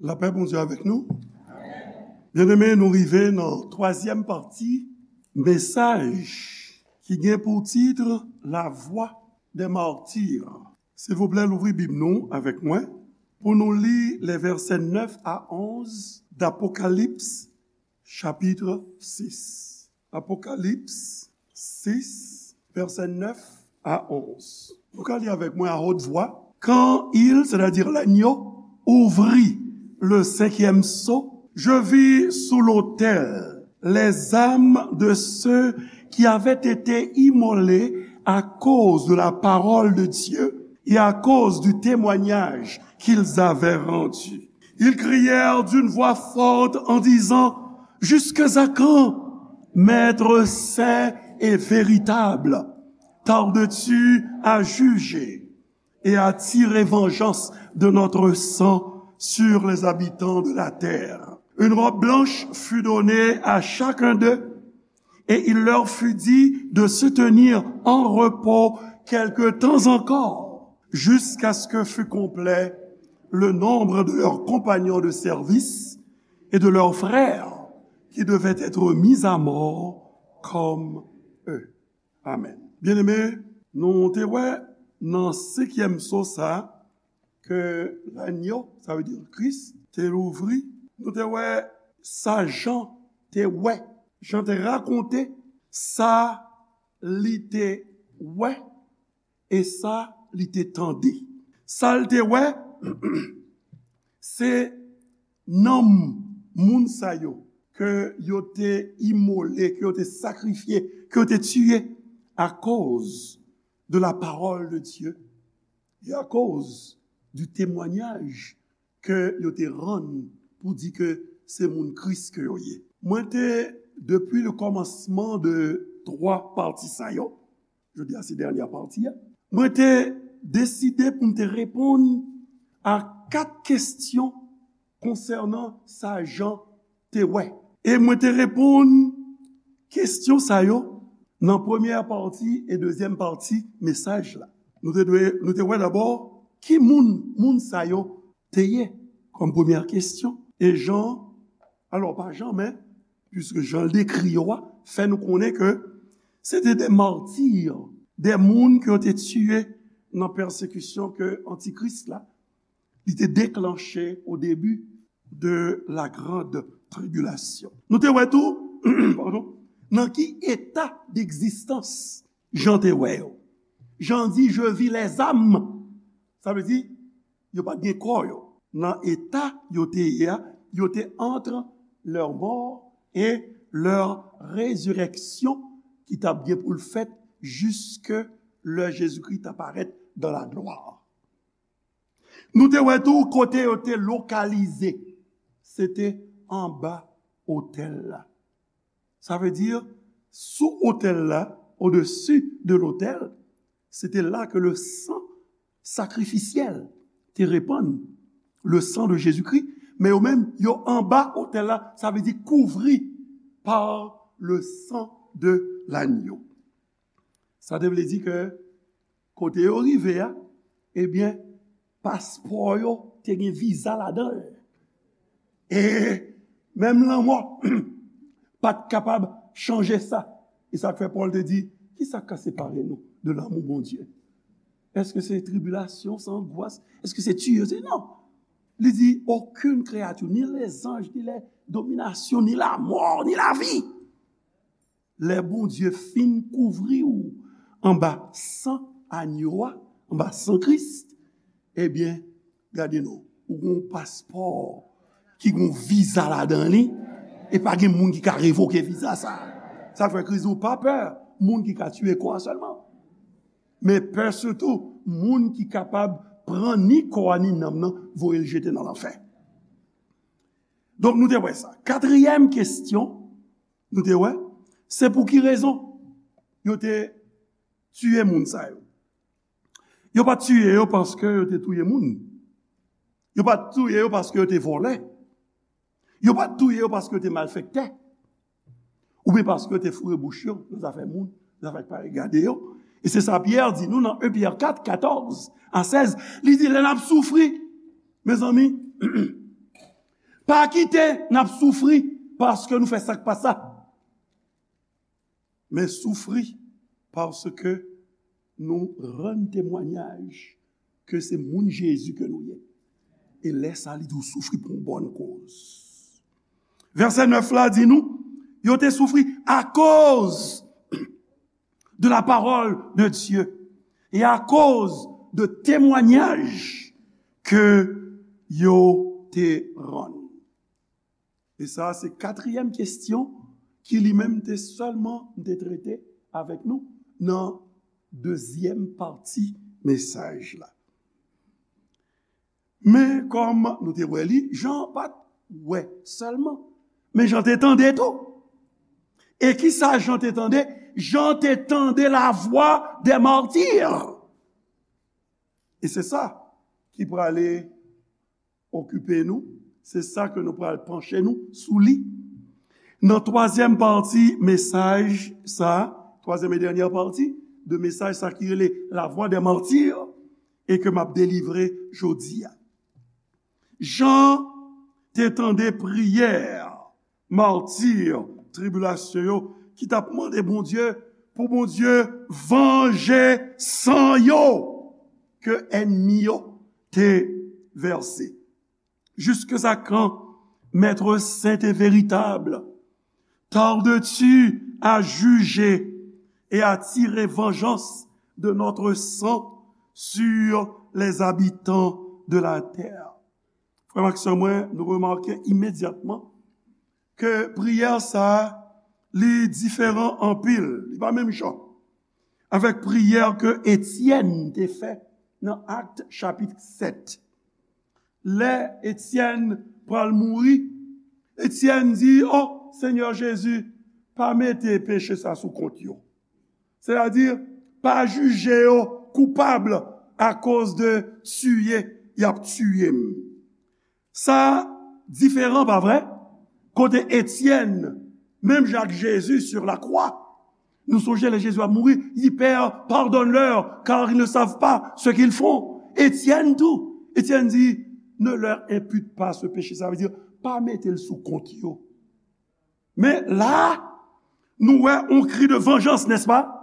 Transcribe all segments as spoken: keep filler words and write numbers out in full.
Lapè Bondye avèk nou. Byeneme, nou rive nan twazyèm pati mesaj ki gen pou tit La voix des martyrs. Silvouplè, louvri Bib nou avèk mwen pou nou li les versets neuf à onze d'Apocalypse chapitre six. Apocalypse six, versets neuf à onze. Nou ka li avèk mwen à haute voix. Quand il, c'est-à-dire l'agneau, ouvrit le cinquième sceau, je vis sous l'autel les âmes de ceux qui avaient été immolés à cause de la parole de Dieu et à cause du témoignage qu'ils avaient rendu. Ils crièrent d'une voix forte en disant, jusqu'à quand, Maître saint et véritable, tardes-tu à juger et à tirer vengeance de notre sang sur les habitants de la terre? Une robe blanche fut donnée à chacun d'eux, et il leur fut dit de se tenir en repos quelque temps encore, jusqu'à ce que fût complet le nombre de leurs compagnons de service et de leurs frères qui devaient être mis à mort comme eux. Amen. Byeneme, nou te wè nan senkyèm sceau sa ke lanyo, sa vle di Kris, te louvri. Nou te wè sa Jan te wè. Jan te rakonte sa li te wè e sa li te tande. Sa l te wè, se nanm moun sa yo ke yo te imole, ke yo te sakrifye, ke yo te tiye akoz de la parole de Dieu et à cause du témoignage ke yo te rann pou di ke se moun Kris ke yo ye. Mwen te, depi le kòmansman de twa pati sa yo, jodi a se dènyè pati a, mwen te deside pou m te reponn a kat kesyon konsènan sa Jan te wè. E mwen te reponn kesyon sa yo nan premyè pati e dezyèm pati mesaj la. Nou te dwe, nou te wè dabò ki moun, moun sa yo te ye kòm premyè kesyon. E Jan, alò pa Jan, men, piske Jan dekri yo a, fè nou konnen ke se te de mati, de moun ke yo te tiye nan pèsekisyon ke Antikris la, li te deklanche o debi de la grande tribulation. Nou te wè tou, padon, nan ki eta d'egzistans Jan te wè yo. Jan di, je vis les âmes. Sa vle di, yo pa t gen kò yo. Nan eta yo te ye a, yo te entre leur mort et leur résurrection ki t ap gen pou l fèt jiske lè Jezikri t ap parèt dans la gloire. Nou te wè tou kote yo te lokalize. Se te anba otèl la. Sa vle di, sou otèl la, au-dessus de l'autel, se te la ke le san sakrifisyèl te repann, le sang de Jésus-Christ, men yo menm, yo anba otèl la, sa vle di kouvri par le sang de l'agneau. Sa te vle di ke kote yo rive a, ebyen, paspò yo te gen viza ladan l. E menm lanmò pa t kapab chanje sa. E sa k fè Pòl te di, ki sa k ka separe nou de lanmou Bondye? Èske se tribilasyon, se angwas? Èske se tiye? Se non. Li di, okenn kreyati, ni lezanj, ni lè dominasyon, ni lamò, ni lavi. Lè Bondye fin kouvri w anba san anyo a, anba san Kris, ebyen, gade non, ou gen yon paspò ki gen yon viza ladan li, e pa gen moun ki ka revoke viza sa. Sa fè Kris di w pa pè moun ki ka tiye kò a sèlman, men pè sitou moun ki kapab pran ni kò a ni nanm nan, voye l jete nan lanfè. Donk, nou te wè sa. Katriyèm kesyon, nou te wè, se pou ki rezon yo te tiye moun sa yo? Yo pa t tiye yo paske yo te touye moun. Yo pa t touye yo paske yo te vòlè. Yo pa t touye yo paske yo te malfektè. Oubyen paske yo te foure bouch yo nan zafè moun, nan zafè k pa regade yo. E se sa Pyè di nou nan en Pyè kat, katòz a sèz. Li di, lè n ap soufri, mezanmi, Pa kite n ap soufri paske nou fè sa k pa sa. Men soufri paske nou rann temwayaj ke se moun Jezi ke nou ye. E lè sa a, li di w soufri pou yon bòn koz. Vèsè nèf la di nou, yo te soufri akoz de la parole de Dieu et à cause de témoignages que yo te rann. E sa, se katriyèm kesyon ki li menm te sèlman te trete avèk nou nan dezyèm pati mesaj la. Men kòm nou te wè li, Jan pa t wè sèlman, men Jan te tande tou. E ki sa Jan te tande? Jan te tande la voix des martyrs. E se sa ki prale okipe nou, se sa ke nou pral panche nou sou li. Nan twazyèm pati mesaj sa, twazyèm e dènyè pati de mesaj sa ki rele la voix des martyrs, e ke m ap delivre jodi a. Jan te tande priyè mati, tribilasyon yo, ki t ap mande Bondye pou Bondye vanje san yo ke ènmi yo te vèse. Jusqu'à quand, Maître saint et véritable, tardes-tu à juger et à tirer vengeance de notre sang sur les habitants de la terre? Frè m ak sè mwen, nou remake imedyatman ke priyè sa a, li diferan anpil, li pa menm jan avèk priyè ke Etyèn te fè nan Akt chapit sèt. Lè Etyèn pral mouri, Etyèn di, "O Senyè Jezi, pa mete peche sa sou kont yo." Sètadi, pa jije yo koupab akoz de tiye y ap tiye m. Sa diferan, pa vre? Kote Etyèn, menm jan ak Jezi sur la croix, nou sonje lè Jezi ap mouri, li, "Père, pardonne-leur, car ils ne savent pas ce qu'ils font." Etyèn tou, Etyèn di, "Ne leur impute pas ce péché." Sa vle di, pa mete l sou kont yo. Men la, nou wè yon kri de vengeance, n'est-ce pas?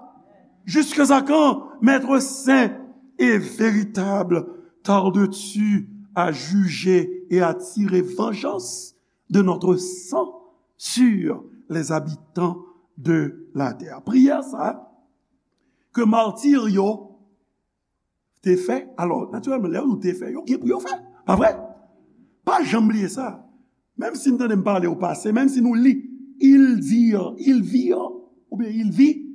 Jusqu'à quand, Maître saint et véritable, tardes-tu à juger et à tirer vengeance de notre sang sur les habitants de la terre? Priyè sa ke mati yo te fè. Alò, natirèlman, lè yo te fè, yo gen pou yo fè. Pa vre? Pa janm bliye sa. Menm si n tande m pale o pase, menm si nou li, il dire, il vir, oubyen il vit,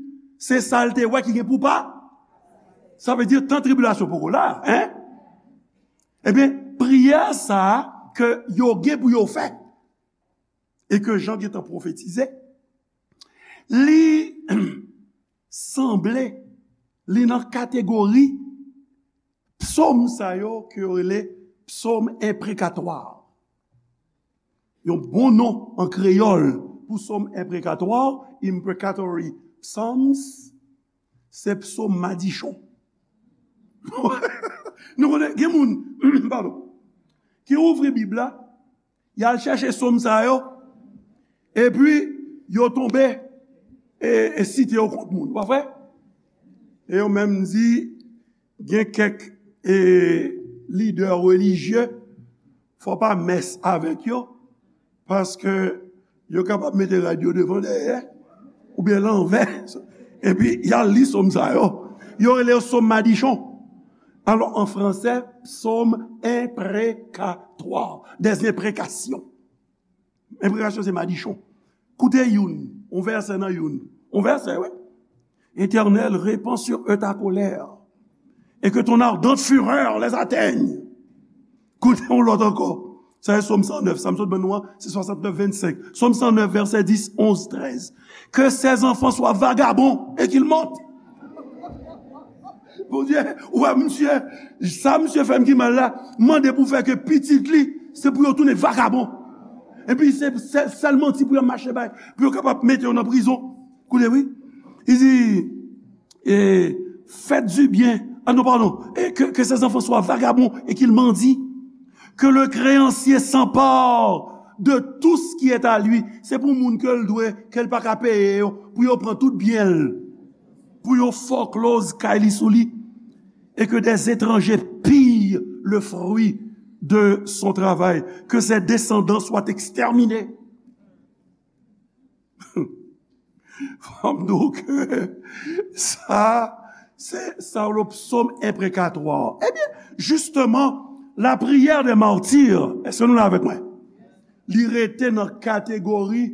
se sa l te wè ki gen pou pa. Sa vle di, tan tribilasyon poko la, en? Ebyen, priyè sa a ke yo gen pou yo fè, e ke Jan gentan pwofetize, li sanble, li nan kategori psòm sa yo ke yo rele psòm enprekatwa. Yon bon non an kreyòl pou psòm enprekatwa, imprecatory psalms, se psòm madichon. Nou konnen, gen moun, padon, ki ouvri Bib la, y al chèche psòm sa yo, epi yo tonbe e, e site yo kont moun, pa vre? E yo menm di, gen kèk, e, lidè relijye, fò pa mès avèk yo, paske yo kapab mete rad yo devan, dèyè, oubyen lanvè, epi y al li psòm sa yo. Yo rele yo psòm madichon. Alò, an fransè, psaume imprécatoire, des imprécations. Enprekasyon se madichon. Koute youn, yon vèsè nan youn. Yon vèsè, wi. Éternel, répands sur eux ta colère, et que ton ardente fureur les atteigne. Koute yon lòt ankò. Sa se Sòm san nèf. Sa m sot ban nou an, se swasantnèf vennsenk. Sòm san nèf, vèsè dis, onz, trèz. Que ses enfants soient vagabonds et qu'ils montent. Bondye, ou wè misye, sa misye fè m ki mal la, mande pou fè ke pitit li, se pou yo tounen vagabon. Epi se sèl, sèl manti pou yo mache bay, pou yo kapab mete yo nan prizon. Koute, wi. Li di, e, faites du bien. Ah non, pardon. Et que, que ses enfants soient vagabonds et qu'ils mendient. Que le créancier s'empare de tout ce qui est à lui. Se pou moun ke l dwe, ke l pa ka peye yo, pou yo pran tout byen l, pou yo foreclose kay li sou li, et que des étrangers pillent le fruit de son travail, que ses descendants soient exterminés. Fò m di w ke sa, se sa w le psaume imprécatoire. Ebyen, justement, la prière des martyrs, èske nou la avèk mwen? Li rete nan kategori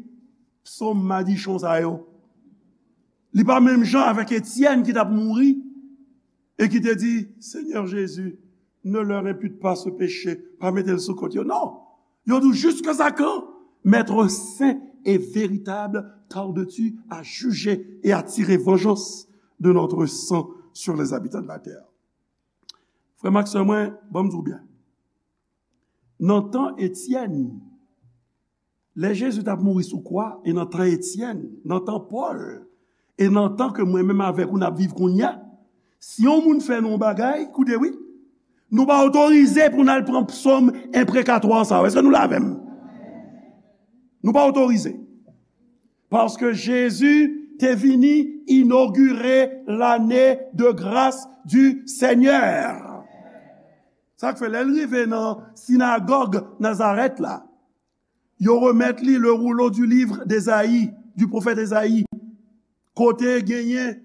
psaume madichon sa yo. Li pa menm jan avèk Etyèn ki t ap mouri e ki te di, Seigneur Jésus, ne leur impute pas ce péché, pa mete l sou kont yo. Non! Yo di, jusqu'à quand, Maître saint et véritable, tardes-tu à juger et à tirer vengeance de notre sang sur les habitants de la terre? Frè m ak sè mwen, ban m di w byen. Nan tan Etyèn, lè Jezi t ap mouri sou kwa, e nan tan Etyèn, nan tan Pòl, e nan tan ke mwen menm avèk ou n ap viv kounye a, si yon moun fè nou yon bagay, koute wi, nou pa otorize pou n al pran psòm enprekatwa sa yo. Èske nou la avè m? Nou pa otorize. Paske Jezi te vini inogire lane de gras du Senyè. Sa k fè lè l rive nan sinagòg Nazarèt la, yo remèt li le rouleau du livre d'Ésaïe, du prophète Ésaïe. Kote genyen,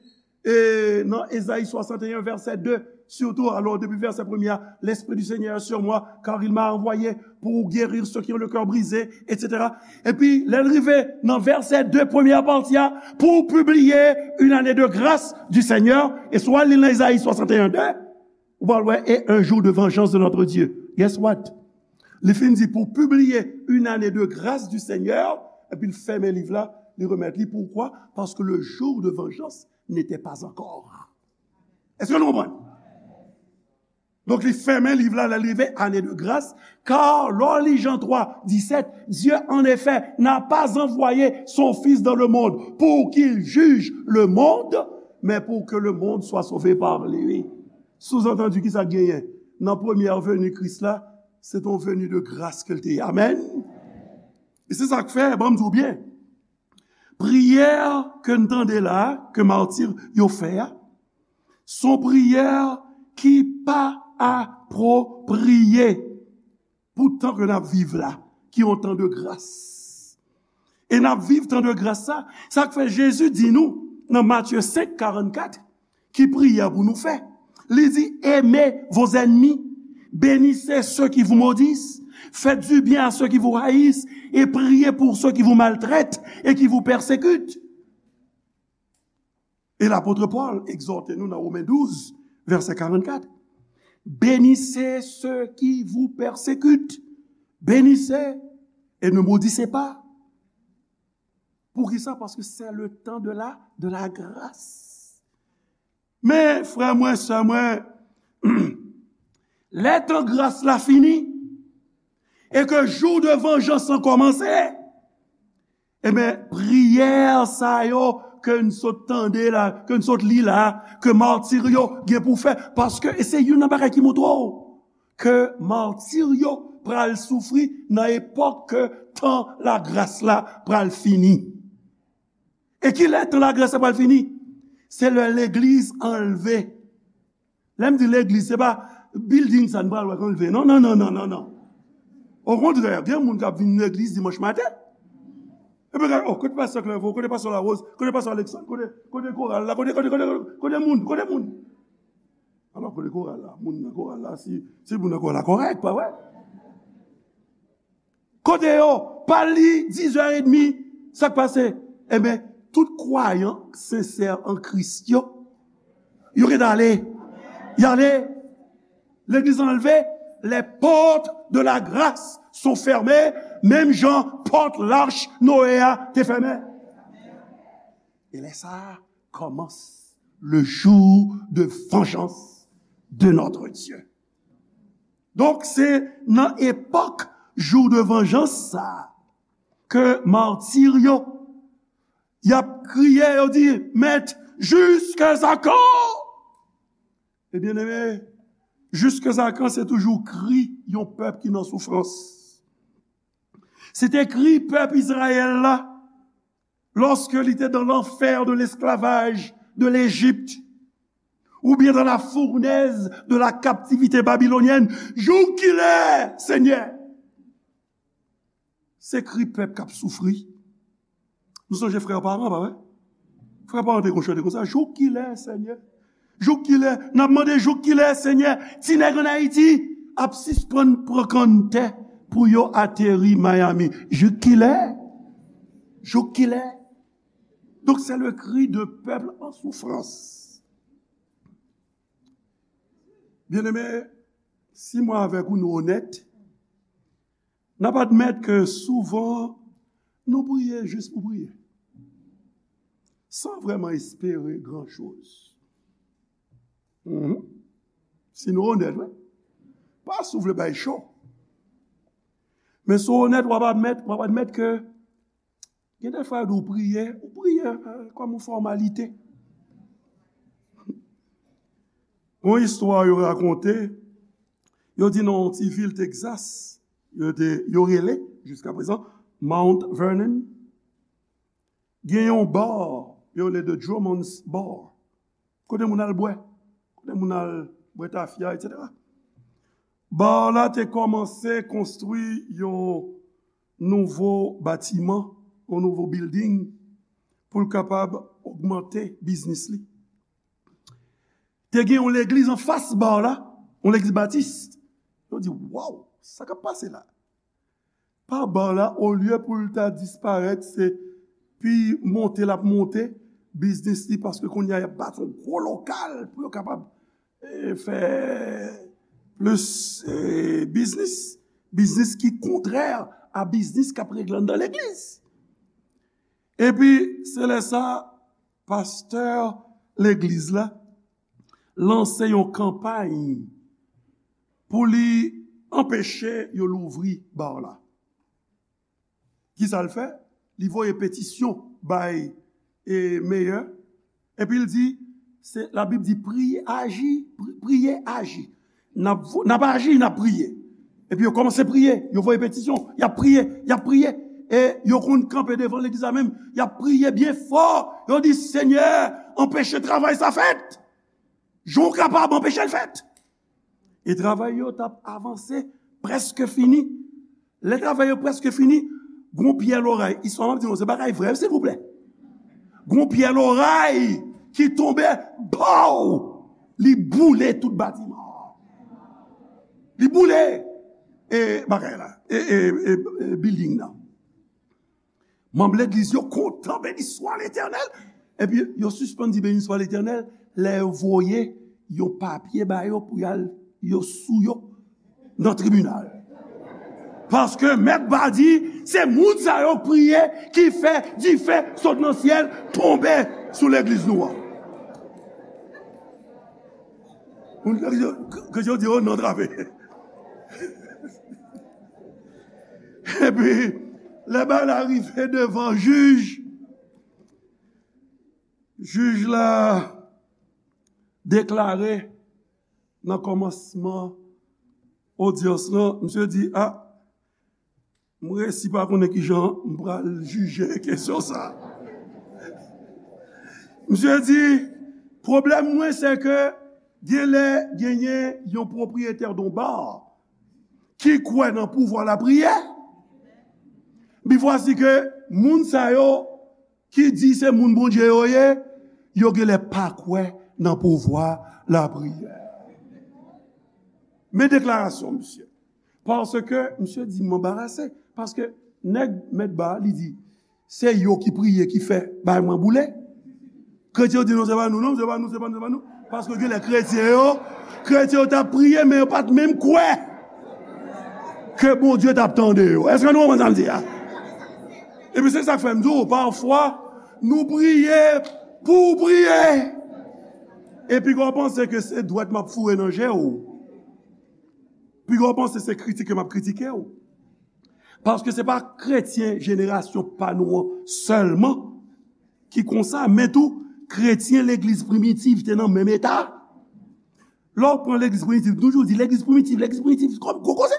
e, nan Ezayi swasanteyen, vèsè de, sitou, alò, depi vèsè premye a, L'Esprit du Seigneur est sur moi, car il m'a envoyé pour guérir ceux qui ont le cœur brisé, et cetera. Epi, lè l rive nan vèsè de, premyè pati a, pour publier une année de grâce du Seigneur, e si w al li nan Ezayi swasanteyen de, ou pral wè, et un jour de vengeance de notre Dieu. Guess what? Li fin di, pour publier une année de grâce du Seigneur, epi l fèmen liv la, li remèt li. Poukwa? Paske le jour de vengeance n'était pas encore. Èske nou konprann? Donk, li fèmen liv la, lè l rive année de grâce, car lè w li Jan twa disèt, Dieu en effet n'a pas envoyé son Fils dans le monde pour qu'il juge le monde, mais pour que le monde soit sauvé par lui. Souzantandi, ki sa k genyen? Nan premyè veni Kris la, se te yon veni de gras ke l te ye. Amèn. E se sa k fè, ban m di w byen, priyè ke n tande la, ke mati yo fè a, se yon priyè ki pa apwopriye pou tan ke n ap viv la, ki yon tan de gras. E n ap viv tan de gras sa, sa k fè Jezi di nou nan Matye senk karannkat, ki priyè pou nou fè. Li di, aimez vos ennemis, bénissez ceux qui vous maudissent, faites du bien à ceux qui vous haïssent, et priez pour ceux qui vous maltraitent et qui vous persécutent. E lapot Pòl egzòte nou nan Women douz, vèsè karannkat. Bénissez ceux qui vous persécutent. Bénissez et ne maudissez pas. Poukisa? Paske c'est le temps de la, de la grâce. Men, frè mwen, sè mwen, lè tan gras la fini, e ke jou de vanjans lan kòmanse, ebyen, priyè sa yo ke n sot tande la, ke n sot li la, ke mati yo gen pou fè, paske, e se youn nan bagay ki montre w ke mati yo pral soufri nan epòk ke tan lagras la pral fini. E ki lè tan lagras la pral fini? Se lè legliz anlve. Lè m di legliz, se pa building sa n pral wè k anlve. Non, non, non, non, non, non. Okontrè, gen moun k ap vin legliz dimanch maten. Epi gade, oh, kote pastè Clerveau, kote pastè Larose, kote pastè Alexandre, kote, kote koral la, kote, kote, kote, kote moun, kote moun? Alò, kote koral la? Moun nan koral la, si, si moun nan koral la kòrèk, pa vre? Kote yo? Pa li, diz è edmi, sa k pase? Enben, tout kwayan sensè an Kris yo, yo gentan ale. Y ale. Legliz anlve, les portes de la grâce sont fermées, menm jan pòt lach Noe a te fèmen. E lè sa a kòmanse le jour de vengeance de notre Dieu. Donk, se nan epòk jou de vanjans sa a ke mati yo, y ap kriye, yo di, Mèt, jusqu'à quand? E byeneme, jusqu'à quand se toujou kri yon pèp ki nan soufrans. Se te kri pèp Izrayèl la, lorsque il était dans l'enfer de l'esclavage de l'Égypte, ou bien dans la fournaise de la captivité babylonienne. Jouk kilè, Senyè? Se kri pèp k ap soufri. Nou sonje frè Paran, pa vre? Frè Paran te konn chante konsa, jouk kilè, Senyè? Jouk kilè? N ap mande jouk kilè, Senyè, ti nèg ann Ayiti ap sispann pran kanntè pou yo ateri Miami? Jouk kilè? Jouk kilè? Donc, c'est le cri de peuple en souffrance. Byeneme, si mwen avèk ou nou onèt, n ap admèt ke souvan nou priye jis pou priye, san vrèman espere gran choz. Mhm. Si nou onèt, wi. Pa si w vle bay cho. Men si w onèt, w ap admèt, w ap admèt ke gen de fwa yo di w priye, ou priye, eh, kòm yon fòmalite. Yon istwa yo rakonte, yo di nan yon ti vil Texas, yo te, yo rele, jiska prezan, Mount Vernon. Gen yon bar, yo rele The Drummond's Bar. Kote moun al bwè, kote moun al bwè tafya, etsetera. Bar la te kòmanse konstwi yon nouvo batiman, yon nouvo building, pou l kapab ogmante biznis li. Te gen yon legliz anfas bar la, yon legliz batis. Yo di, waw, sa k ap pase la? Pa bar la, olye pou l ta disparèt, se pi monte l ap monte biznis li, paske kounye a y ap bati yon gwo lokal pou yo kapab, eh, fè plis, eh, biznis. Biznis ki kontrè a biznis k ap regle anndan legliz. Epi, se lè sa, pastè legliz la lanse yon kanpay pou li anpeche yo louvri bar la. Kisa l fè? Li voye petisyon bay, e, meyè. Epi l di, se, Labib di, priye, aji, pri-, priye, aji. N ap vo-, n ap aji, n ap priye. Epi yo kòmanse priye, yo voye petisyon, y ap priye, y ap priye. E yo konn kanpe devan legliz la menm, y ap priye byen fò. Yo di, Senyè, anpeche travay sa fèt. Jan w kapab anpeche l fèt. E travay yo t ap avanse, prèske fini. Lè travay yo prèske fini, gon pyè loray, istwa m ap di nou, se bagay vrè, silvouplè. Gon pyè loray ki tonbe, baw! Li boule tout batiman an. Li boule, e, bagay la, e, e, e, e, building nan. Manm legliz yo kontan, beni swa Letènèl. Epi yo sispann di beni swa Letènèl lè yo voye yon papye ba yo pou y al, yo sou yo nan tribinal. Paske mèt ba di, se moun sa yo k priye ki fè dife sot nan syèl tonbe sou legliz nou an. Moun legliz yo, ke yo di, oh non, trape. Epi, lè bagay la rive devan jij, jij la deklare nan kòmansman odyans lan, misye di, a, m resi pa konnen kijan m pral jije kesyon sa. Misye di, pwoblèm mwen, se ke genlè genyen yon pwopriyetè yon bar ki kwè nan pouvwa lapriyè. Bi vwasi ke moun sa yo ki di se moun Bondye yo ye, yo genlè pa kwè nan pouvwa lapriyè. Men deklarasyon misye. Paske misye di m anbarase. Paske nèg mèt ba, li di, se yo ki priye ki fè bay mwen boule. Kretyen yo di, non, se pa nou, non, se pa nou, se pa nou, se pa nou. Paske genlè kretyen yo, kretyen yo t ap priye, men yo pa t menm kwè ke Bondye t ap tande yo. Èske nou konprann sa m di a? Epi se sa k fè m di w, pafwa, nou priye pou w priye. Epi w panse ke se dwèt m ap foure nan je w. Piga w panse se kritike m ap kritike w. Paske se pa kretyen jenerasyon pa nou an sèlman ki konsa, men tou kretyen legliz primitiv te nan menm eta. Lè w pran legliz primitiv, toujou di legliz primitiv, legliz primitiv, kòm gwo koze.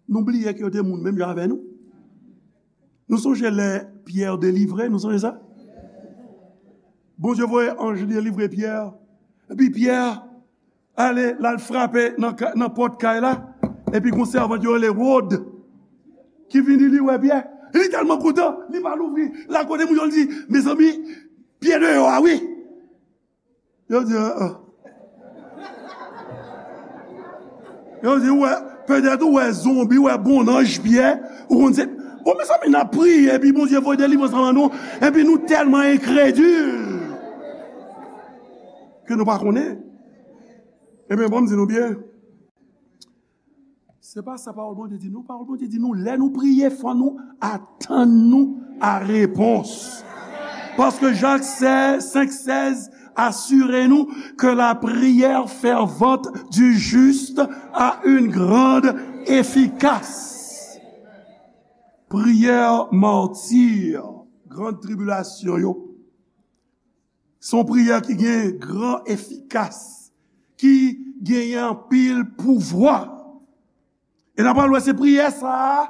Nou bliye ke yo te moun menm jan avè nou. Nou sonje lè Pyè delivre, nou sonje sa? Bondye voye anj li delivre Pyè. Epi Pyè ale, l al frape nan, ka- nan pòt kay la. Epi gon sèvant yo rele Wòd ki vini, li wè Pyè. Li tèlman kontan, li pa louvri. L al kote moun yo, li di, mezanmi, Pyè deyò a, wi. Yo di, ah, ah. Yo di, ou wè, petèt ou wè zonbi, ou wè bonnanj Pyè, ou konn se, bon, mezanmi, n ap priye, epi Bondye voye delivrans anba nou, epi nou tèlman enkredil ke nou pa konnen. Ebyen, bon, m di nou byen. Se pa sa pawòl Bondye di nou. Pawòl Bondye di nou, lè nou priye, fò nou atann nou a repons. Paske Jak senk sèz asire nou que la prière fervente du juste a une grande efficace. Priyè mati, gran tribilasyon yo, se yon priyè ki gen gran efikas, ki genyen anpil pouvwa. E n ap pral wè se priyè sa a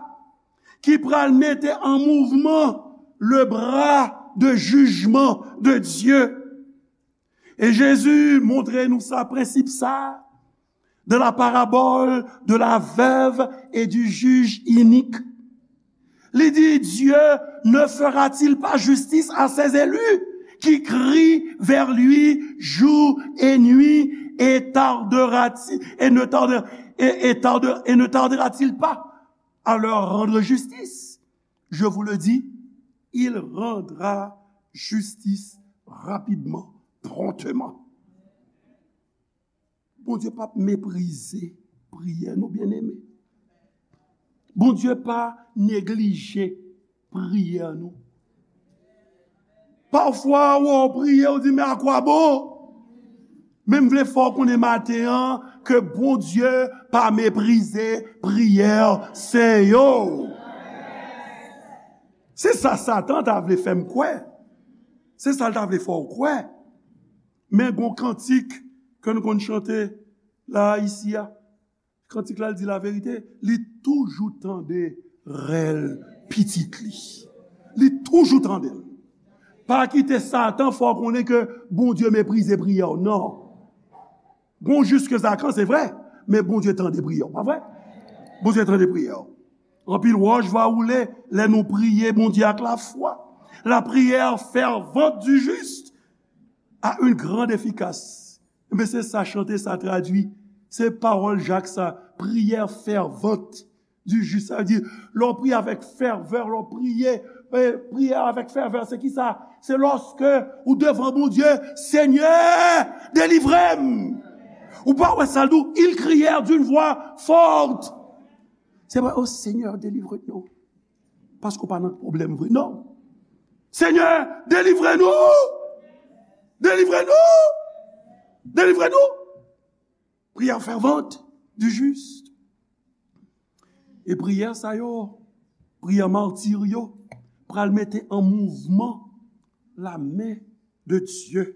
ki pral mete an mouvman le bra de jijman de Dye. E Jezi montre nou sa, prensip sa, dans la parabole de la veuve et du juge inique. Li di, Dieu ne fera-t-il pas justice à ses élus qui crient vers lui jour et nuit et tardera-t-il, et ne tarde-, et, et tarde-, et ne tardera-t-il pas à leur rendre justice? Je vous le dis, il rendra justice rapidement, promptement. Bondye p ap meprize priyè nou, byeneme. Bondye pa neglije priyè nou. Pafwa, w ap priye, w di, men akwabo? Men m vle fè w konnen maten an ke Bondye pa meprize priyè sen yo. Se sa Satan ta vle fè m kwè. Se sa l ta vle fè w kwè. Men gon kantik ke nou konn chante la, isi a. Kantik la, l di laverite, li toujou tande rèl pitit li. Li toujou tande l. Pa kite Satan fè w konnen ke Bondye meprize priyè w, non. Gon jis ke zakan, se vre, men Bondye tande priyè w, pa vre? Bondye tande priyè w. Anpil wòch va woule lè nou priye Bondye ak lafwa. La prière fervente du juste a une grande efficace. Men se sa chante sa tradui. Se pawòl Jak sa, prière fervente du juste. Sa vle di, lè w priye avèk fèvè, lè w priye, eh, priye avèk fèvè, se ki sa? Se lòske ou devan Bondye, Senyè, delivre m. Ou pa wè sa l di w, ils crièrent d'une voix forte. Se pa, oh Seigneur, délivre-nous. Paske w pa nan pwoblèm vre, non. Senyè, delivre nou! Delivre nou! Delivre nou! Prière fervente du juste. E priyè sa yo, priyè mati yo, pral mete an mouvman lamen de Dye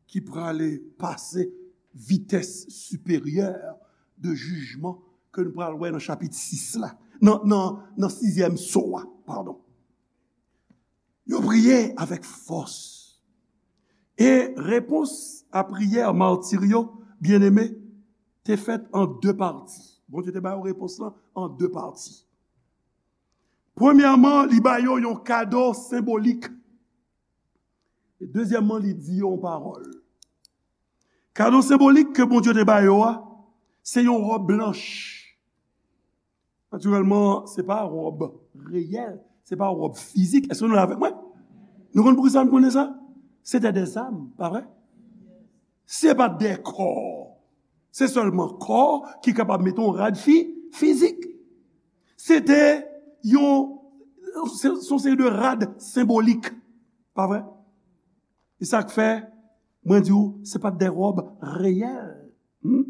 ki prale pase vitès siperyè de jijman ke nou pral wè nan chapit sis la, nan, nan, nan sizyèm so a, padon. Yo priye avèk fòs. E repons a priyè mati yo, byeneme, te fèt an de pati. Bondye te ba yo repons lan an de pati. Premyèman, li ba yo yon kado senbolik. E dezyèmman, li di yo yon pawòl. Kado senbolik ke Bondye te ba yo a, se yon wòb blanch. Natirèlman, se pa wòb reyèl, se pa wòb fizik. Èske nou la avèk mwen? Nou konn poukisa nou konnen sa? Se te dèzam, pa vre? Se pa de kò. Se sèlman kò ki kapab mete yon rad fi-, fizik. Se te yon, se, se yon seri de rad senbolik. Pa vre? E sa k fè, mwen di w, se pa t de wòb reyèl. Hmm?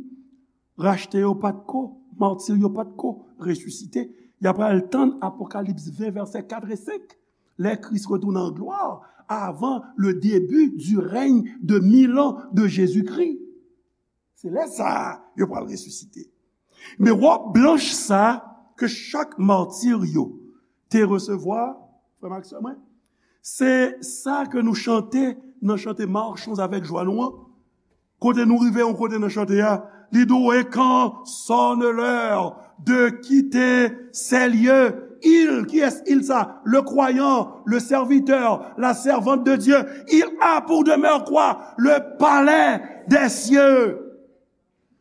Rachte yo pa t ko, mati yo pa t ko resisite. Y ap al tann Apokalips ven, vèsè kat e senk. Lè Kris retounen an glwa, avan le début du règne de mille ans de Jésus-Christ. Se lè sa a, yo pral resisite. Men wòb blanch sa a ke chak mati yo te resevwa, Frè m ak sè mwen, se sa ke nou chante nan chante Marchons avec joie nou an. Kote nou rive yon kote nan chante a, li di w, et quand sonne l'heure de quitter ces lieux, il, kiyès il sa? Le croyant, le serviteur, la servante de Dieu, il a pour demeure quoi? Le palais des cieux.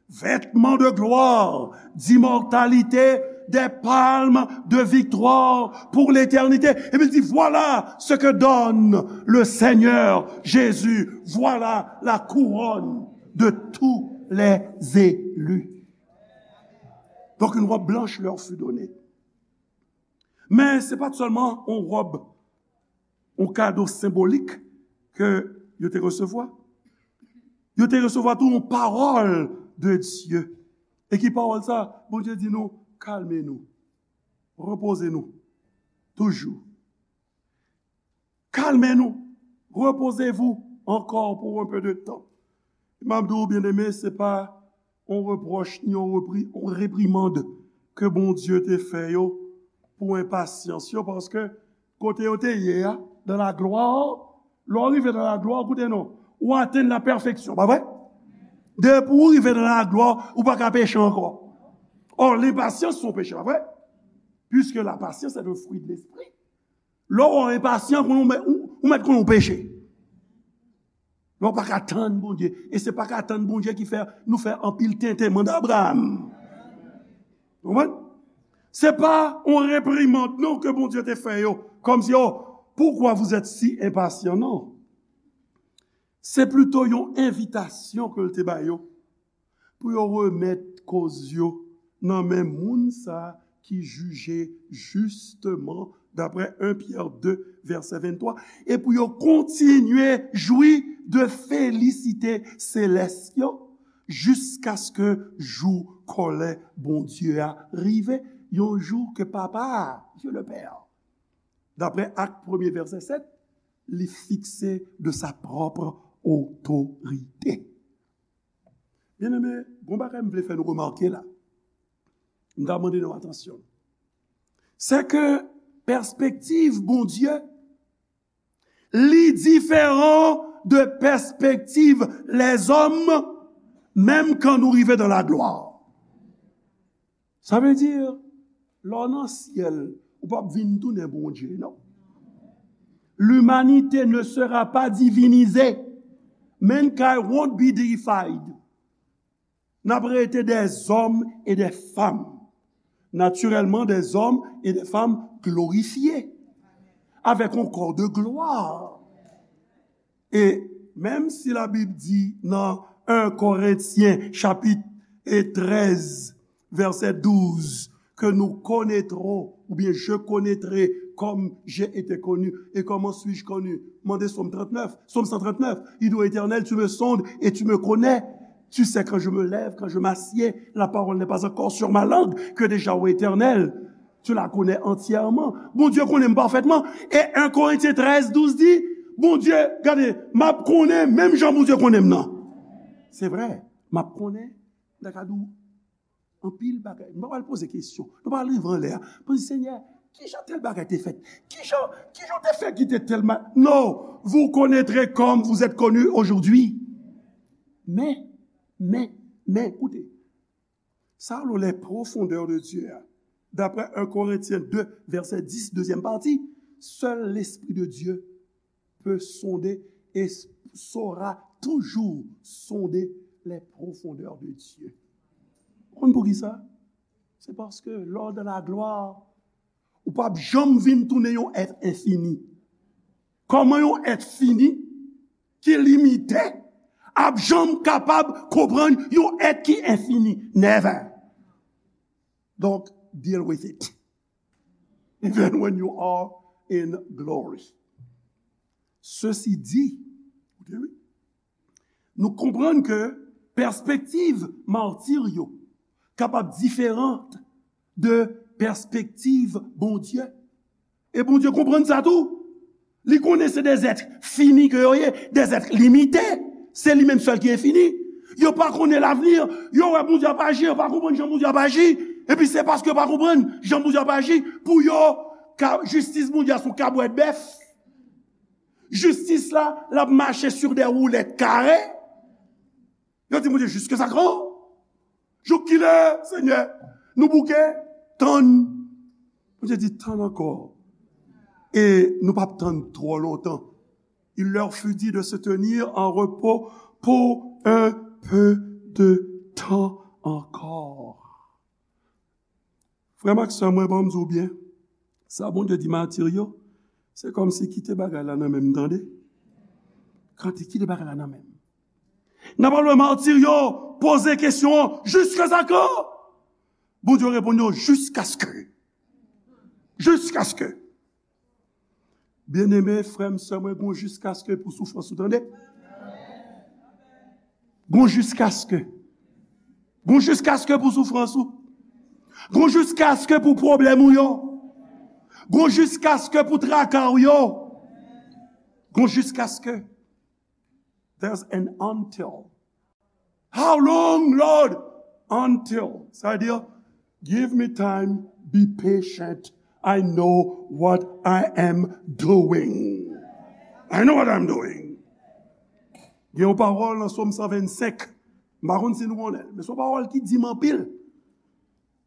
Vêtements de gloire, d'immortalité, des palmes de victoire pour l'éternité. Epi l di, voilà ce que donne le Seigneur Jésus. Voilà la couronne de tous les élus. Donc une robe blanche leur fut donnée. Men se pa t sèlman yon wòb, yon kado senbolik ke yo te resevwa. Yo te resevwa tou yon pawòl de Dye. E ki pawòl sa? Bondye di nou, kalme nou, repoze nou, toujou. Kalme nou, reposez-vous encore pour un peu de temps. M ap di w, byeneme, se pa yon repwòch ni yon repri-, yon reprimand ke Bondye te fè yo pou enpasyans yo, paske kote yo te ye a, dans la gloire, lè w rive dans la gloire, koute non, ou atenn la pèfeksyon, pa vre? Depi w rive dans la gloire, ou pa ka peche ankò. Or, lenpasyans se yon peche, pa vre? Puisque la patience est le fruit de l'esprit. Lè w enpasyan, konnen w mèt, ou, ou mèt konnen w peche. Lè w pa ka tann Bondye. E se pa ka tann Bondye ki fè nou fè anpil tenten, manda Abraram. Konprann? Se pa yon reprimand non ke Bondye te fè yo, kòmsi, oh, pourquoi vous êtes si impatients? Non. Se plito yon envitasyon ke l te ba yo pou yo remèt koz yo nan men moun sa ki jije jisteman, daprè en Pyè de, vèsè venntwa, e pou yo kontinye jwi de felisite selès yo, jiskaske jou kòlè Bondye a rive, yon jou ke Papa a, Dieu le Père, daprè Ak premye vèsè sèt, li fikse de sa propre autorité. Byeneme, gon bagay m vle fè nou remake la. M ta mande nou atansyon. Se ke pèspektiv Bondye, li diferan de pèspektiv lèzòm, menm kan nou rive dans la gloire. Sa vle di, lè w nan syèl, ou p ap vin tounen Bondye, non. L'humanité ne sera pas divinisée. Mankind won't be deified. N ap rete des hommes et des femmes. Naturellement, des hommes et des femmes glorifiés, avec un corps de gloire. E menm si Labib di nan en Korentyen chapit e trèz, vèsè douz, que nous connaîtrons, ou bien je connaîtrai comme j'ai été connu. Et comment suis-je connu? Mande Sòm trannèf, Sòm san trannèf. Il dit, Éternel, tu me sondes et tu me connais. Tu sais quand je me lève, quand je m'assieds. La parole n'est pas encore sur ma langue, que déjà, ô Éternel, tu la connais entièrement. Bondye konnen m pafètman. E en Korentyen trèz douz di, Bondye, gade, m ap konnen, menm jan Bondye konnen m nan. Se vre, m ap konnen, m ta ka di w anpil bagay. M pa pral poze kesyon. Nou pa rive anlè a. Poze, Senyè, kijan tèl bagay te fèt? Kijan, kijan w te fè ki te tèlman? Non, vous connaîtrez comme vous êtes connu aujourd'hui. Men, men, men, koute. Sa rele les profondeurs de Dieu a. D'après un Corinthiens deux, verset dix, deuxième partie, seul l'Esprit de Dieu peut sonder et saura toujours sonder les profondeurs de Dieu. Ou konn poukisa? Se paske lè w dans la gloire, ou p ap janm vin tounen yon èt enfini. Kòman yon èt fini, ki limite, ap janm kapab konprann yon èt ki enfini? Never. Donk, deal with it. Even when you are in glory. Ceci dit, koute wi, nou konprann ke pèspektiv mati yo kapab diferan de pèspektiv Bondye. E Bondye konprann sa tou. Li konnen se de zèt fini ke yo ye, de zèt limite. Se li menm sèl ki enfini. Yo pa konnen lavni. Yo wè Bondye ap aji, yo pa konprann jan Bondye ap aji. Epi se paske yo pa konprann jan Bondye ap aji pou yo Ka-, jistis Bondye a se yon kabwèt bèf. Jistis la, l ap mache sur des roulettes carrées. Yo di Bondye, jusqu'à quand? Jouk kilè, Senyè? Nou bouke? Tann. Bondye di, tann ankò. E nou p ap tann twò lontan. Il leur fut dit de se tenir en repos pour un peu de temps encore. Frè m ak sè mwen, ban m di w byen, sa Bondye di matir yo, se kòmsi kite bagay la nan men m, tande. Kante kite bagay la nan men m. N ap al wè matir yo poze kesyon an, jiskaske? Bondye reponn yo, jiskaske. Jiskaske. Byeneme, frè m, sè mwen, gon jiskaske pou soufrans ou, tande. Gon jiskaske. Gon jiskaske pou soufrans ou. Gon jiskaske pou pwoblèm ou yo. Gon jiskaske pou traka ou yo. Gon jiskaske. There's an until. How long, Lord? Until. Sa vle di, give me time, be patient. I know what I am doing. I know what I'm doing. Gen yon pawòl nan Sòm san vennsenk. M pa konn si nou konnen l, men se yon pawòl ki di m anpil.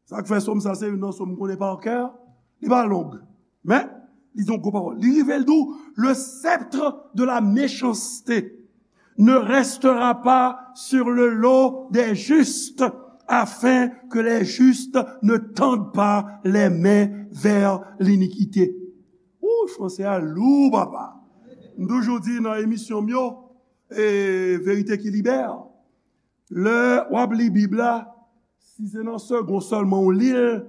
Sa k fè sòm sa se youn nan sòm m konnen pa kè, li pa long, men li di yon gwo pawòl. Li rive, l di w, le sceptre de la méchanceté ne restera pas sur le lot des justes, afin que les justes ne tendent pas les mains vers l'iniquité. Ou, franse a lou, papa. M toujou di nan emisyon m yo, e, Verite ki Libè, lè w ap li Bib la, si se nan segon sèlman w li l,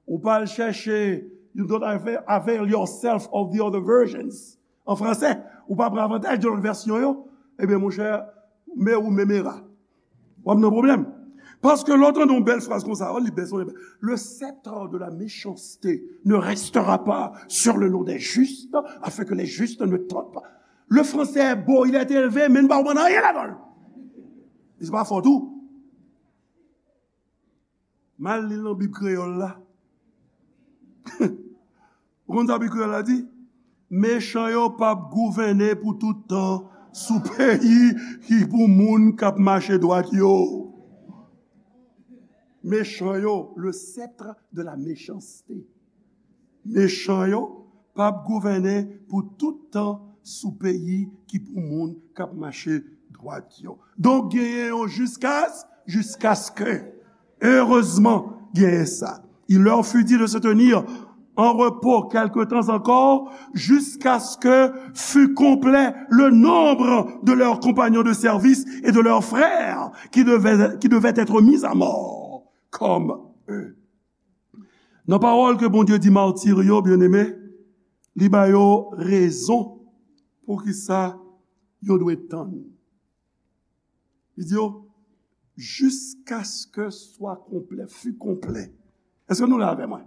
ou pa al chèche, you don't avail, avail yourself of the other versions. An fransè, ou pa pran avantaj de lòt vèsyon yo, ebyen, monchè, me ou memera. W ap nan pwoblèm. Paske lè w tande yon bèl fraz konsa, w li bèl, son bèl. Le sceptre de la méchanceté ne restera pas sur le lot des justes, afin que les justes ne tendent pas. Le français est beau, il a été élevé, men n pa konprann anyen ladan l. E se pa fòt ou. M al li l nan Bib kreyòl la. Ou konn sa Bib kreyòl la di? Mechan yo p ap gouvène pou tout tan sou peyi ki pou moun k ap mache dwat yo. Mechan yo, le sceptre de la méchanceté. Mechan yo p ap gouvène pou tout tan sou peyi ki pou moun k ap mache dwat yo. Donk, genyen yon jiskas, jiskaske. Erezman, genyen sa. Il leur fut dit de se tenir en repos quelque temps encore, jusqu'à ce que fût complet le nombre de leurs compagnons de service et de leurs frères qui devaient, qui devaient être mis à mort comme eux. Nan pawòl ke Bondye di matir yo, byeneme, li ba yo rezon poukisa yo dwe tann. Li di yo, jusqu'à ce que soit complet, fût complet. Èske nou la avè mwen?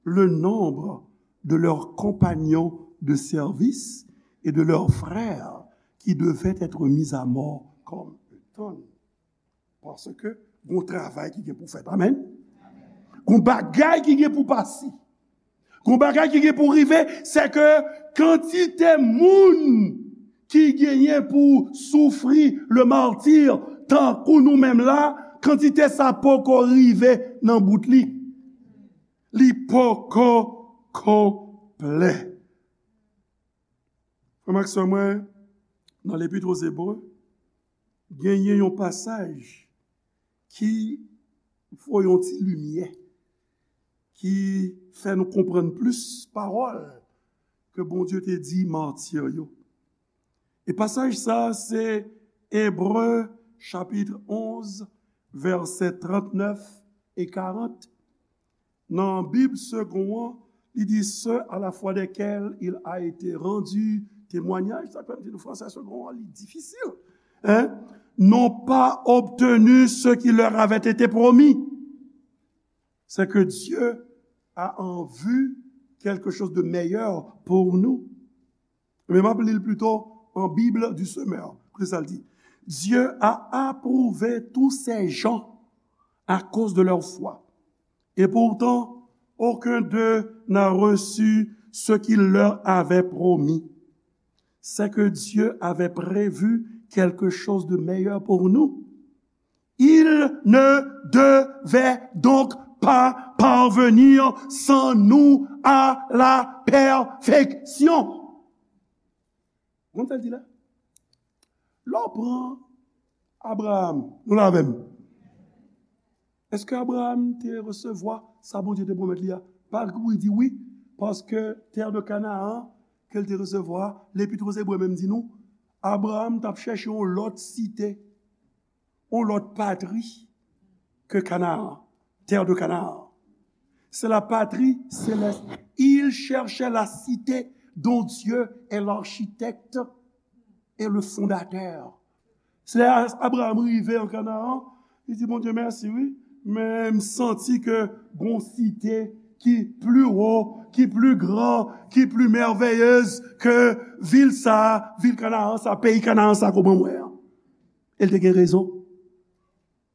Le nombre de leurs compagnons de service et de leurs frères qui devaient être mis à mort comme eux. Tann. Paske gon travay ki gen pou fèt. Amèn. Gon bagay ki gen pou pase. Gon bagay ki gen pou rive, se ke kantite moun ki genyen pou soufri le martyre, tankou nou menm la, kantite sa poko rive nan bout li. Li poko konplè. Frè m ak sè mwen, nan Lepit o Zebre, genyen yon pasaj ki voye yon ti limyè, ki fè nou konprann plis pawòl ke Bondye te di matir yo. E pasaj sa a, se Ebre, chapit onz, vèsè trannèf e karant. Nan Bib Segond an, li di, ceux à la foi desquels il a été rendu témoignage, sa k fè m di nou fransè Segond an, li difisil. Hein? N'ont pas obtenu ce qui leur avait été promis. C'est que Dieu a en vue quelque chose de meilleur pour nous. Men m ap li l plito en Bible du Semeur. Koute sa l di. Dieu a approuvé tous ces gens à cause de leur foi. Et pourtant, Aucun d'eux n'a reçu ce qu'il leur avait promis. C'est que Dieu avait prévu quelque chose de meilleur pour nous. Il ne devait donc pas parvenir sans nous à la perfection. Konn sa l di la? Lè w pran Abraram, nou la avè m? Èske Abraram te resevwa sa Bondye te pwomèt li a? Pa kou li di wi, paske tè de Kanaan ke l te resevwa, Lepit Ebre menm di nou, Abraram t ap chèche yon lòt site, yon lòt patri ke Kanaan, tè de Kanaan. C'est la patrie céleste. Il cherchait la cité dont Dieu est l'architecte et le fondateur. Se lè Abraram rive an Kanaan, li di Bondye mèsi wi, men m santi ke gon site ki pli wo, ki pli gran, ki pli mèveyez ke vil sa, vil Kanaan sa, peyi Kanaan sa ke w ban mwen an. E l te gen rezon.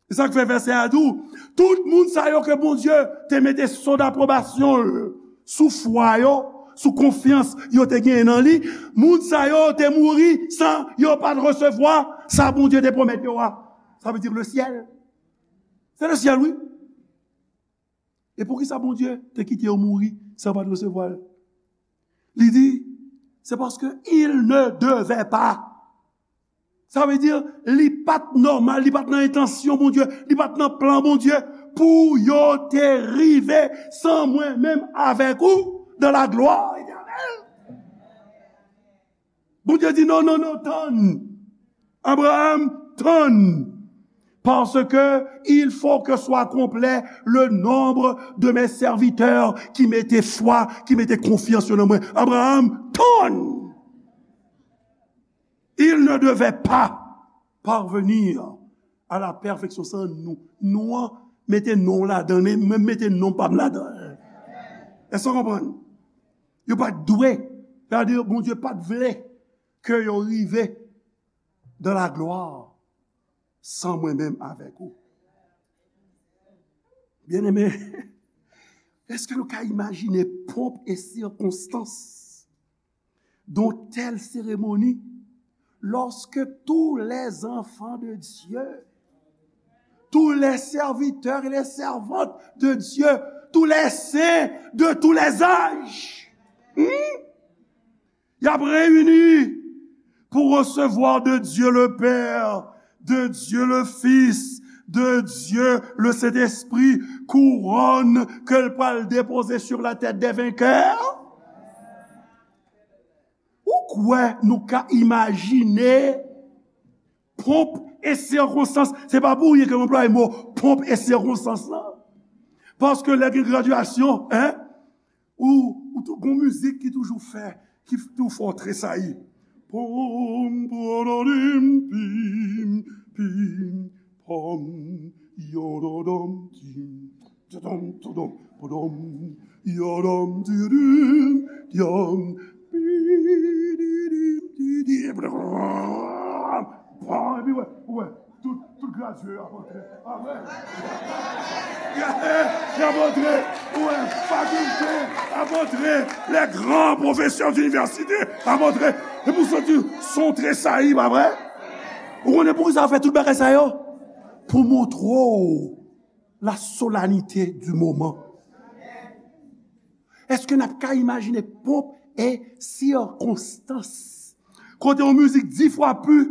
Se sa k fè vèsè a di w, tout moun sa yo ke Bondye te mete so dapwobasyon l sou fwa yo, sou konfyans yo te genyen nan li, moun sa yo te mouri san yo pa t resevwa sa Bondye te pwomèt yo a. Sa vle di le syèl. Se le syèl, wi. E poukisa Bondye te kite yo mouri san yo pa t resevwa l? Li di, c'est parce que il ne devait pas. Sa vle di, li pa t nòmal, li pa t nan entansyon Bondye, li pa t nan plan Bondye pou yo te rive san mwen menm avèk ou dans la gloire éternelle. Bondye di non, non, non, tann. Abraham, tann. Parce que il faut que soit complet le nombre de mes serviteurs qui mettaient foi, qui mettaient confiance dans moi. Abraham, tann. Il ne devait pas parvenir à la perfection sans nous. Nou an, mete non w ladan, men mwen mete non pa m ladan. Èske w konprann? Yo pa t dwe, sa vle di Bondye pa t vle ke yo rive dans la gloire san mwen menm avèk ou. Byeneme, èske nou ka imajine pomp e sikonstans d'une telle cérémonie, lorsque tous les enfants de Dieu, tous les serviteurs et les servantes de Dieu, tous les saints de tous les âges, hmm, y ap reyini pou resevwa de Dieu le Père, de Dieu le Fils, de Dieu le Saint-Esprit, kouwòn ke l pral depoze sur la tête des vainqueurs. Ou kwè nou ka imajine pomp e sikonstans? Se pa pou ryen ke m anplwaye mo pomp e sikonstans lan. Paske lè gen gradyasyon, en, ou, ou tou, gon mizik ki toujou fè, ki toujou fè w tresayi. Pom, pom, pim, pim, pom, yododom, tim. Tudum, tudum, pudum, yodom, didim, dyom, bididim, didi. Bon, epi wè, wè, tout, tout gradye yo ap antre. Amèn. Y ap antre, wè, fakilte ap antre, les grands professeurs d'université ap antre. Epi w santi son tresayi, pa vre? Ou konnen poukisa yo fè tout bagay sa yo? Pou montre w la solennité du moment. Èske n ap ka imajine pomp e sikonstans? Kote yon mizik dis fwa pli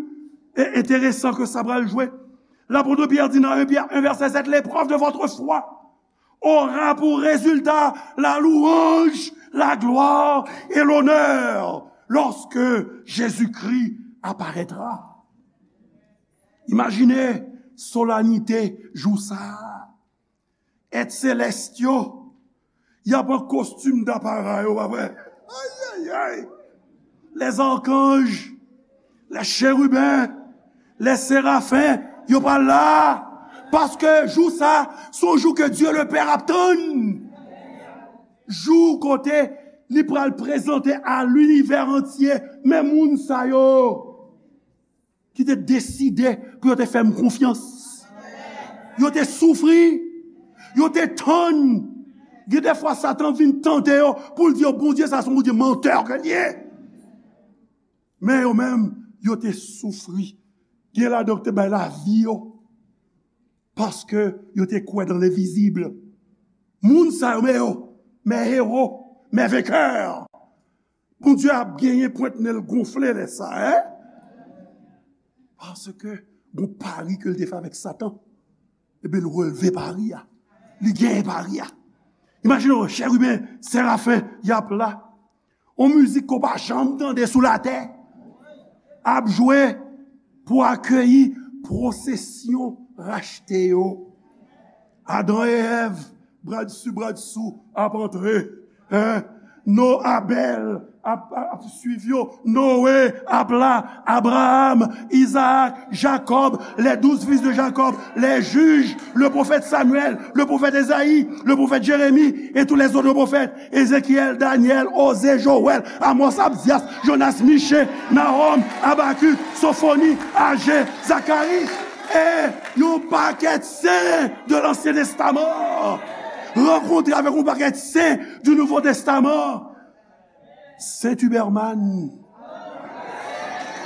e enteresan ke sa pral jwe. Lapot Pyè di nan en Pyè en vèsè sèt, l'épreuve de votre foi aura pour résultat la louange, la gloire et l'honneur lorsque Jésus-Christ apparaîtra. Imajine solennite jou sa a. Èt selès yo, y ap an kostim dapara yo, pa vre? Ayayay! Les archanges, les chérubins, les séraphins, yo pral la. Paske jou sa, se yon jou ke Dye le Pè ap tann. Jou kote li pral prezante a linivè antye, men moun sa yo ki te deside pou yo te fè m konfyans. Yo te soufri, yo te tann, Gen de fwa Satan vin tante yo pou l di yo Bondye sa se yon Bondye mantè ke l ye. Men yo menm, yo te soufri. Gen ladan yo te bay lavi yo. Paske yo te kwè nan lenvizib. Moun sa yo, men yo, men ewo, men venkè. Bondye ap genyen pwent nen l gonfle lè sa, en? Paske gon pari ke l te fè avèk Satan. Ebyen, l relve pari a. Li genyen pari a. Imajine w, cheriben, serafen, y ap la. On mizik ke w pa janm tande sou latè. Ap jwe pou akeyi pwosesyon rachte yo. Adan e Èv, bradsou, bradsou, ap antre. Hein? No, Abèl ap, ap, ap swiv yo. Noé ap la. Abraham, Izaak, Jakòb, les douze fils de Jacob, les juges, le prophète Samuel, le prophète Esaïe, le prophète Jérémie et tous les autres prophètes, Ézéchiel, Daniel, Osée, Joël, Amos, Abdias, Jonas, Michée, Nahom, Habakuk, Sophonie, Agé, Zacharie. E yon pakèt sen de Lansyen Testaman rankontre avèk yon pakèt sen du Nouveau Testament. Sent Uberman,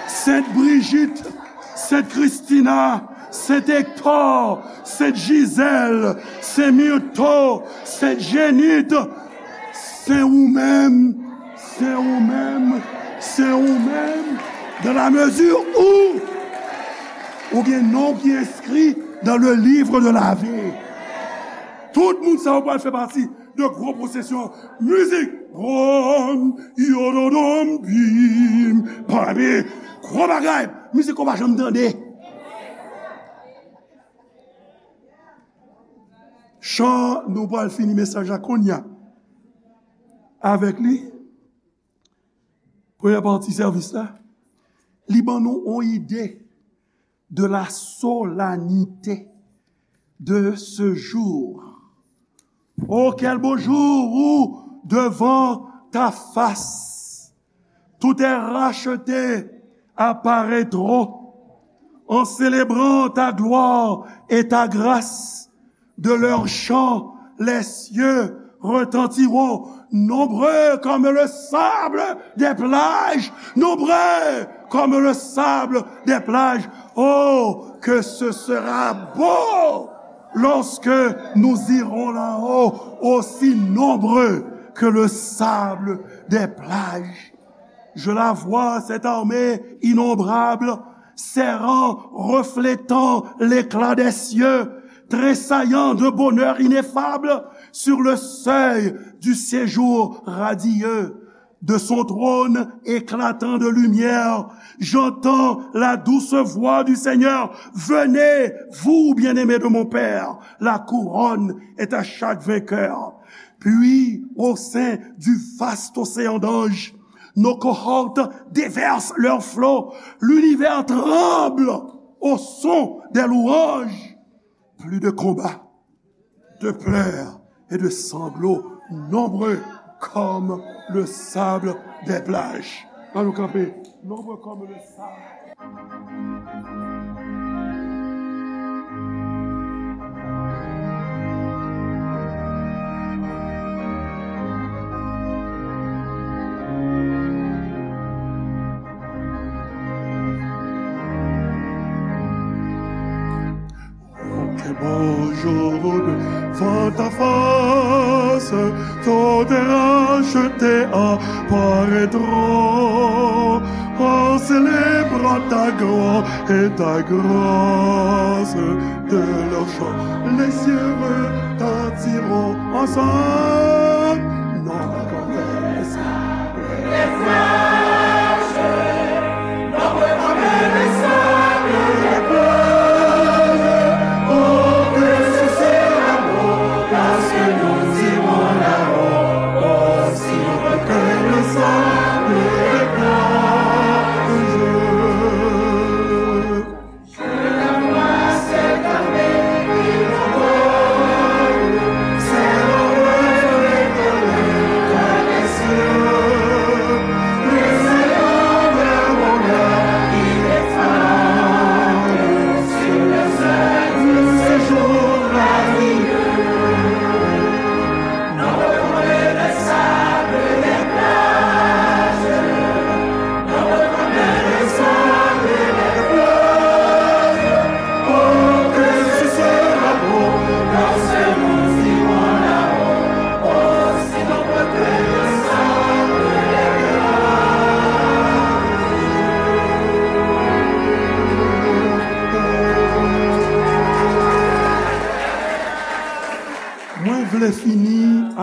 Sent Brijit, Sent Kristina, Sent Ektò, Sent Jizèl, Sent Mirto, Sent Jenit, Sen ou menm, sen ou menm, sen ou menm, dans la mesure où ou gen non ki enskri dans le livre de la vie. Tout moun sa yo pral fè pati de gwo pwosesyon mizik. Bwòm, yododòm, bim, pami. Gwo bagay. Mizik ou pa janm tande. Chan, nou pral fini mesaj la kounye a. Avèk li, premyè pati sèvis la, li ban nou yon ide de la solennité de ce jour. Oh, quel beau jour où, devant ta face, tous tes rachetés apparaîtront en célébrant ta gloire et ta grâce. De leurs chants, les cieux retentiront, nombreux comme le sable des plages, nombreux comme le sable des plages. Oh, que ce sera beau lorsque nous irons là-haut, aussi nombreux que le sable des plages. Je la vois, cette armée innombrable, serrant, reflétant l'éclat des cieux, tressaillant de bonheur ineffable sur le seuil du séjour radieux. De son trône éclatant de lumière, j'entends la douce voix du Seigneur. Venez, vous bien-aimés de mon Père, la couronne est à chaque vainqueur. Puis, au sein du vaste océan d'anges, nos cohortes déversent leurs flots. L'univers tremble au son des louanges. Plus de combats, de pleurs et de sanglots, nombreux comme le sable des plages. Ann nou kanpe. Nombreux comme le sable. Quel beau jour devant ta face, tous tes rachetés apparaîtront, en célébrant ta gloire et ta grâce. De leurs chants, les cieux retentiront ensemble. Non,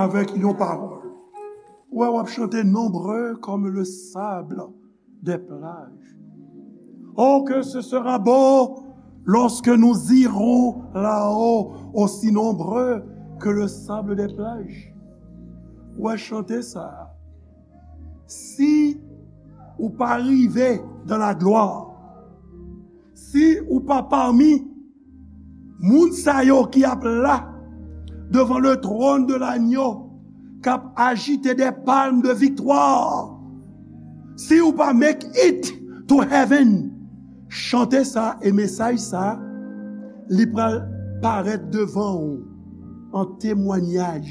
Avèk yon pawòl. Ou wè, w ap chante: nombreux comme le sable des plages. Oh, que ce sera beau lorsque nous irons là-haut, aussi nombreux que le sable des plages. Ou wè, chante sa. Si ou pa rive dans la gloire, si ou pa pami moun sa yo ki ap la devan le trône de l'agneau, k ap ajite de palm de viktwa, si ou pa make it to heaven, chante sa e mesaj sa, li pral parèt devan ou an temwanyaj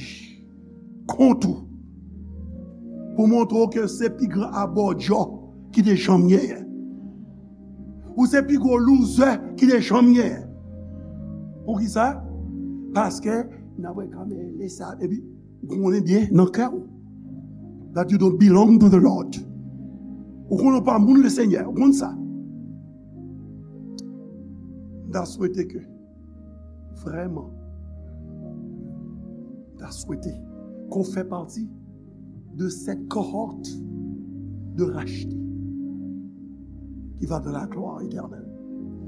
kont ou, pou montre w ke se pi gran abòdjò ki te janm genyen. Ou se pi gwo loser ki te janm genyen. Poukisa? Paske n ap wè kanmenm lè sa, epi ou konnen byen nan kè w that you don't belong to the Lord. Ou konnen w pa moun Lesenyè, ou konn sa. M ta swete ke, vrèman, m ta swete ke w fè pati de cette cohorte de rachetés qui va dans la gloire éternelle.